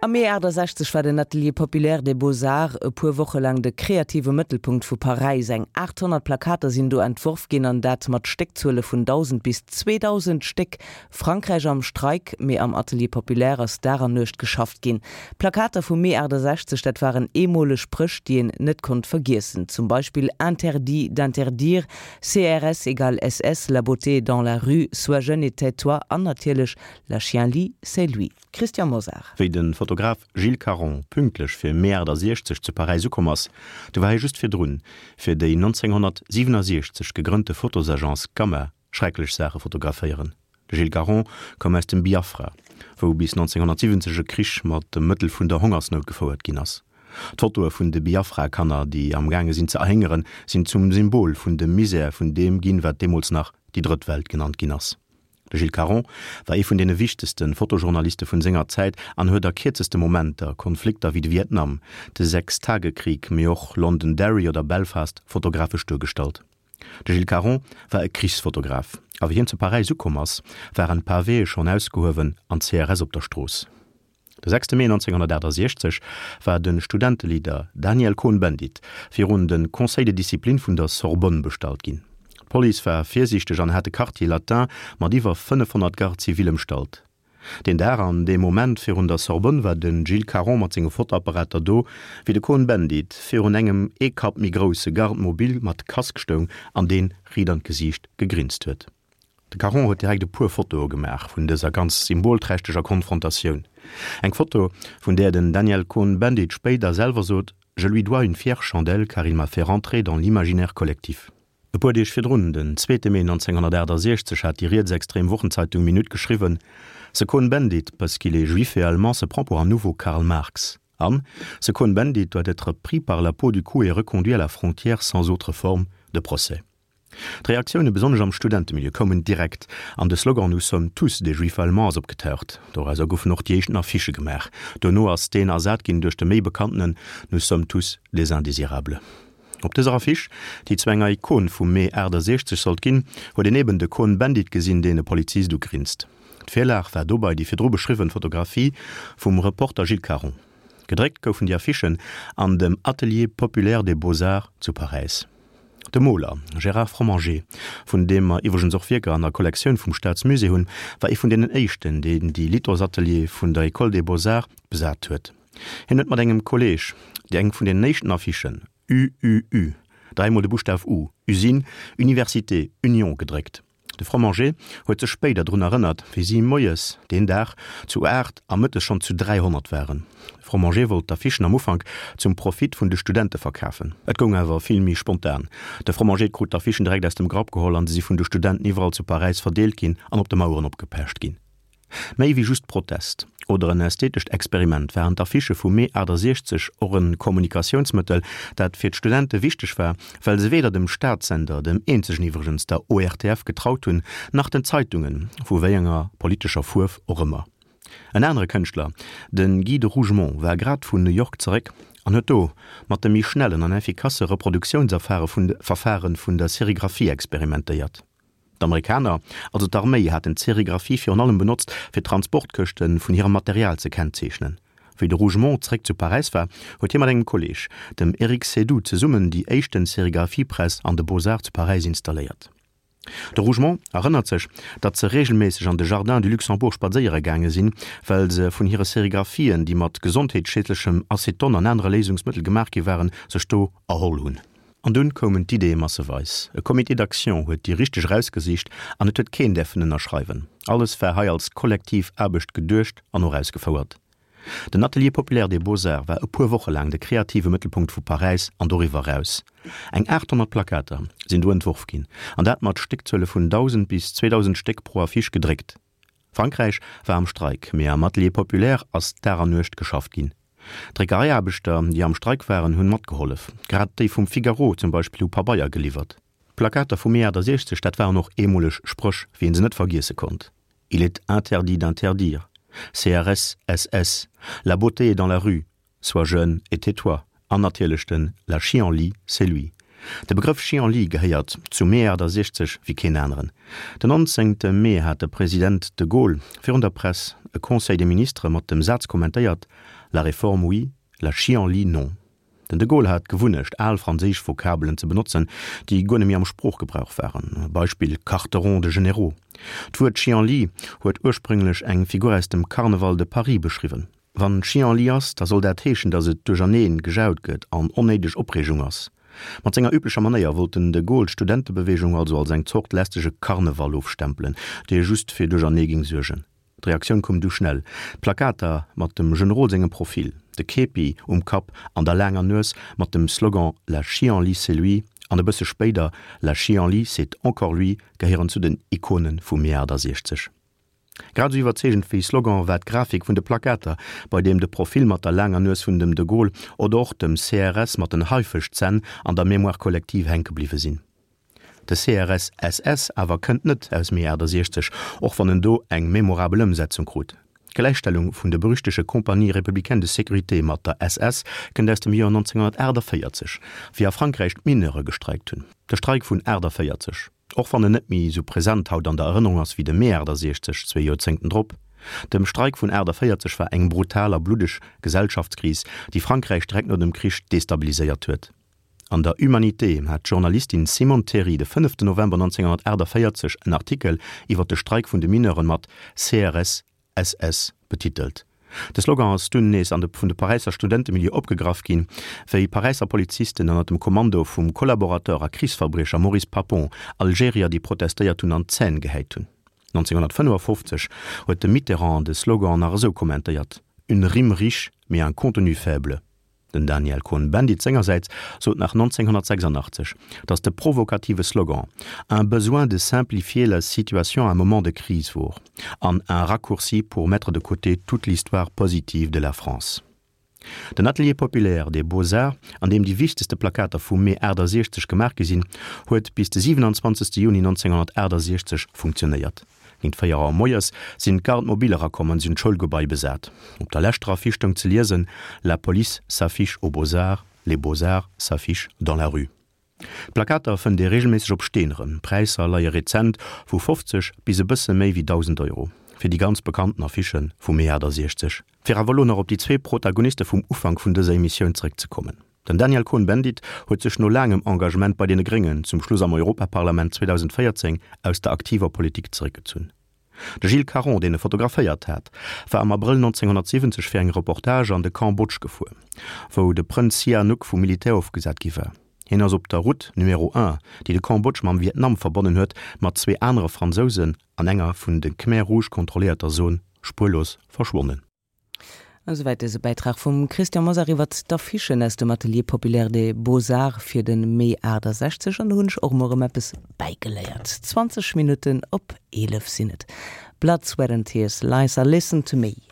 Am Mee 68 war den Atelier Populaire des Beaux-Arts e puer Woche laang de kreative Mëttelpunkt vu Paräis. Eng 800 Plakater sinn do entworf ginn, an dat mat Stéckzuele vun 1.000 bis 2.000 Stéck. Frankräich am Streik, mee am Atelier Populaire ass Dag an Nuecht geschafft ginn. D'Plakater vum Mee 68, dat waren eemoleg Spréch, déi een net konnt vergiessen. Zum Beispill Interdit d'interdire, CRS égale SS, La beauté est dans la rue, Sois jeune et tais-toi an natierlech La chienlit, c'est lui. Christian Mosar. Wéi de Fotograf Gilles Caron pünktlech fir Mee 68 zu Paräis ukomm ass, du war hie just virdrun fir déi 1967 gegrënnte Fotosagence Gamma schrecklech Saache fotograféieren. De Gilles Caron koum aus dem Biafra, wou bis 1970 e Krich mat dem Mëttel vun der Hongersnout gefouert ginn ass. D'Fotoe vun de Biafra-Kanner, déi am gaange sinn ze erhéngeren, sinn zum Symbol vun dem Misär vun deem ginn, wat deemools nach déi Drëtt Welt genannt ginn ass. De Gilles Caron war ee vun deene wichtegste Fotojournaliste vun senger Zäit an huet a kierzeste Momenter Konflikter wéi de Vietnam, de Sechstagekrieg, mee och Londonderry oder Belfast fotografesch duergestallt. De Gilles Caron war e Krichsfotograf a wéi hien zu Paräis ukomm ass, waren d'Pavéë schonn ausgehuewen an d'CRS op der Strooss. De 6 Mee 1968 war de Studenteleader Daniel Cohn-Bendit virun de Conseil de discipline vun der Sorbonne bestallt ginn. D'Police war virsiichteg an hat de Quartier Latin mat iwwer 500 Gardes civiles ëmstallt. Deen Dag an dee Moment virun der Sorbonne war de Gilles Caron mat senge Fotoapparater do, wéi de Cohn-Bendit virun engem ee Kapp méi grousse Garde mobile mat Casque stoung an dee riit an d'Gesiicht gegrinst huet. De Caron huet direkt e puer Fotoe gemaach vun dëser ganz symbolträchteger Konfrontatioun. Eng Foto, vun där den Daniel Cohn-Bendit spéider selwer sot, Je lui dois une fière chandelle car il m'a fait rentrer dans l'imaginaire collectif. E puer Deeg virdrun, den zweete Mee 1968, hat déi rietsextrem Wochenzeitung Minute geschriwwen, Ce Cohn-Bendit, parce qu'il est juif et allemand, se prend pour un nouveau Karl Marx. An, Ce Cohn-Bendit doit être pris par la peau du cou et reconduit à la frontière sans autre forme de procès. D'Reaktioune besonnesch am Studentemilieu koumen direkt an de Slogan Nous sommes tous des Juifs allemands ass opgetaucht. Dorauser goufen och déi éischten Affichë gemaach. Dono ass deen ersat ginn duerch de méi bekanntenen Nous sommes tous des indésirables. Op dëser Affiche, déi zu enger Ikon vum Mee 68 sollt ginn, huet een eben de Cohn-Bendit gesinn, deen e Polizist ugrinst. D'Virlag war dobei déi virdru beschriwwen Fotografie vum Reporter Gilles Caron. Gedréckt goufen déi Affichen an dem Atelier populaire des beaux-arts zu Paräis. De Moler Gérard Fromanger, vun deem mer iwwregens och Wierker an der Kollektioun vum Staatsmusée hunn, war ee vun deenen éischten, deen déi Lithosateliere vun der École des Beaux-Arts besat huet. Hien huet mat engem Kolleeg déi eng vun deenen éischten Affichen, UUU, dräimol de Buschtaf U, Usine, Université, Union, gedréckt. De Fromager huet sech spéider drun erënnert, wéi si moies deen Dag zu 8 a mëttes schonn zu 300 waren. De Fromager wollt d'Affichen am Ufank zum Profit vun de Studente verkafen. Et goung awer vill méi spontan. De Fromager krut d'Affichen direkt aus dem Grapp geholl an se si vun de Studenten iwwerall zu Paräis verdeelt ginn an op de Maueren opgepecht ginn. Méi wéi just Protest oder en ästhetescht Experiment waren d'Affichë vum Mee 68 och e Kommunikatiounsmëttel, dat fir d'Studente wichteg war, well se weder dem Staatssender, dem eenzegen iwwregens, der ORTF, getraut hunn, nach den Zeitungen, vu wéi enger politescher Fuerf och ëmmer. En anere Kënschtler, de Guy de Rougemont, war grad vun New York zeréck an huet do mat de méi schnellen an effikasse Reproduktiounsverfare vun der Serigraphie experimentéiert. D'Amerikaner, also d'Arméi, haten d'Serigraphie virun allem benotzt, fir d'Transportkëschte vun hirem Material ze kennzeechnen. Wéi de Rougemont zréck zu Paräis war, huet hie mat engem Kolleeg, dem Eric Seydoux, zesummen déi éischten Serigraphiepress an de Beaux-Arts zu Paräis installéiert. De Rougemont erënnert sech, datt se reegelméisseg an de Jardin du Luxembourg spadséiere gaange sinn, well se vun hire Serigraphien, déi mat gesondheetsschiedlechem Aceton an anere Léisungsmëttel gemaach gi waren, sech do erholl hunn. An dunn koumen d'Ideeë masseweis. E Comité d'action huet déi richteg erausgesicht an et huet keen däerfen ënnerschreiwen. Alles war hei als kollektiv Aarbecht geduecht an och ausgefouert. Den Atelier populaire des beaux-arts war e puer Woche laang de kreative Mëttelpunkt vu Paräis an doriwwer eraus. Eng 800 Plakater sinn do entworf ginn, an dat mat Stéckzuele vun 1.000 bis 2.000 Stéck pro Affiche gedréckt. Frankräich war am Streik, mee am Atelier populaire ass Dag an Nuecht geschafft ginn. D'Dréckereiaarbechter, déi am Streik waren, hunn matgehollef. Grad déi vum Figaro zum Beispill hu Pabeier geliwwert. D'Plakater vum Mee 68, dat waren och eemoleg Spréch, wéi een se net vergiesse konnt, Il est interdit d'interdire, CRS, SS, La beauté est dans la rue, Sois jeune et tais-toi an natierlech den La chienlit, c'est lui. De Begrëff Chienlit gehéiert zum Mee 68 wéi keen aneren. Den 19. Mee hat de President de Gaulle virun der Press e Conseil des ministres mat dem Saz kommentéiert, La réforme oui, la chienlit non. Den de Gaulle hat d'Gewunnecht, al franséisch Vokabelen ze benotzen, déi guer net méi am Sproochgebrauch waren, Beispill quarteron de généraux. D'Wuert Chienlit huet ursprünglech eng Figur aus dem Carneval de Paris beschriwwen. Wann Chienlit ass, da soll dat heeschen, datt et duercherneen gejaut gëtt an onnéideg Opreegung ass. Mat senger üblecher Manéier wollt den de Gaulle d'Studentebeweegung also als eng Zort lästege Karneval ofstempelen, dee just fir Duerchernee ging suergen. D'Reaktioun koum du schnell, D'Plakater mat dem Generol sengem Profil, de Képi um Kapp an der laanger Nues, mat dem Slogan La chienlit c'est lui an e bësse spéider La chienlit c'est encore lui gehéieren zu den Ikone vum Mee 68. Grad esou iwwerzeegend wéi Slogan war d'Grafik vun de Plakater, bei deem de Profil mat der laanger Nues vun dem de Gaulle oder och dem CRS mat den Haifëschzänn an der Mémoire collective hänke bliwwe sinn. De CRS-SS awer kënnt net aus Mee 68, och wann en do eng memorabel Ëmsetzung krut. D'Gläichstellung vun de berüchtege Compagnie républicaine de sécurité mat der SS kënnt aus dem Joer 1948, wéi a Frankräich d'Mineure gestreikt hunn. De Streik vun 48, och wann en net méi esou present haut an der Erënnerung ass wéi de Mee 68 zwee Joerzéngten drop. Dem Streik vun 48 war eng brutal a bluddeg Gesellschaftskris, déi Frankräich direkt no dem Krich destabiliséiert huet. An der Humanité hat d'Journalistin Simone Théry de 5 November 1948 en Artikel iwwer de Streik vun de Mineuren mat CRS SS betitelt. De Slogan ass dunn nees an de vun de Paräisser Studentemilieu opgegraff ginn, wéi Paräisser Polizisten ënner dem Kommando vum Kollaborateur a Krichsverbriecher Maurice Papon Algerier, déi protestéiert hunn, an d'Zänn gehäit hunn. 1955 huet de Mitterrand de Slogan nach esou kommentéiert, Une rime riche, mais un contenu faible. Den Daniel Cohn-Bendit sengersäits sot nach 1986, datt de provokative Slogan Un besoin de simplifier la situation à un moment de crise wor an un raccourci pour mettre de côté toute l'histoire positive de la France. Den Atelier populaire des Beaux-Arts, an deem déi wichtegste Plakater vum Mee 68 gemaach gi sinn, huet bis de 27 Juni 1968 funktionéiert. Géint 4 Auer moies sinn d'Gardes mobiles erakomm an si hunn d'Schoulgebai besat. Op der leschter Affiche stoung ze liesen, La police s'affiche aux Beaux-Arts, les Beaux-Arts s'affichent dans la rue. D'Plakater fënnt ee reegelméisseg op Steen erëm. D'Präisser leie rezent vu 50 bis e bësse méi wéi 1.000 Euro fir déi ganz bekannten Affichë vum Mee 68. Fir awer elo nach op déi zwee Protagoniste vum Ufank vun dëser Emissioun zeréckzekommen. Den Daniel Cohn-Bendit huet sech no laangem Engagement bei deene Gréngen zum Schluss am Europaparlament 2014 aus der aktiver Politik zeréckgezunn. De Gilles Caron, deen e fotograféiert hat, war am Abrëll 1970 fir eng Reportage an de Cambodge gefuer, wou de Prënz Sihanouk vum Militär ofgesat gi war. Hien ass op der Route Numéro 1, déi de Cambodge mam Vietnam verbonnen huet, mat zwee anere Fransousen an enger vun de Khmer Rouge kontrolléierter Zon spuerlos verschwonnen. Esouwäit dëse Bäitrag vum Christian Mosar iwwert d'Affichen aus dem Atelier Populaire des Beaux-Arts fir de Mee 68. An do hunn ech och emol erëm eppes bäigeléiert. 20 Minutten op 11 sinn et. Blood, Sweat and Tears, Liza, Listen to Me.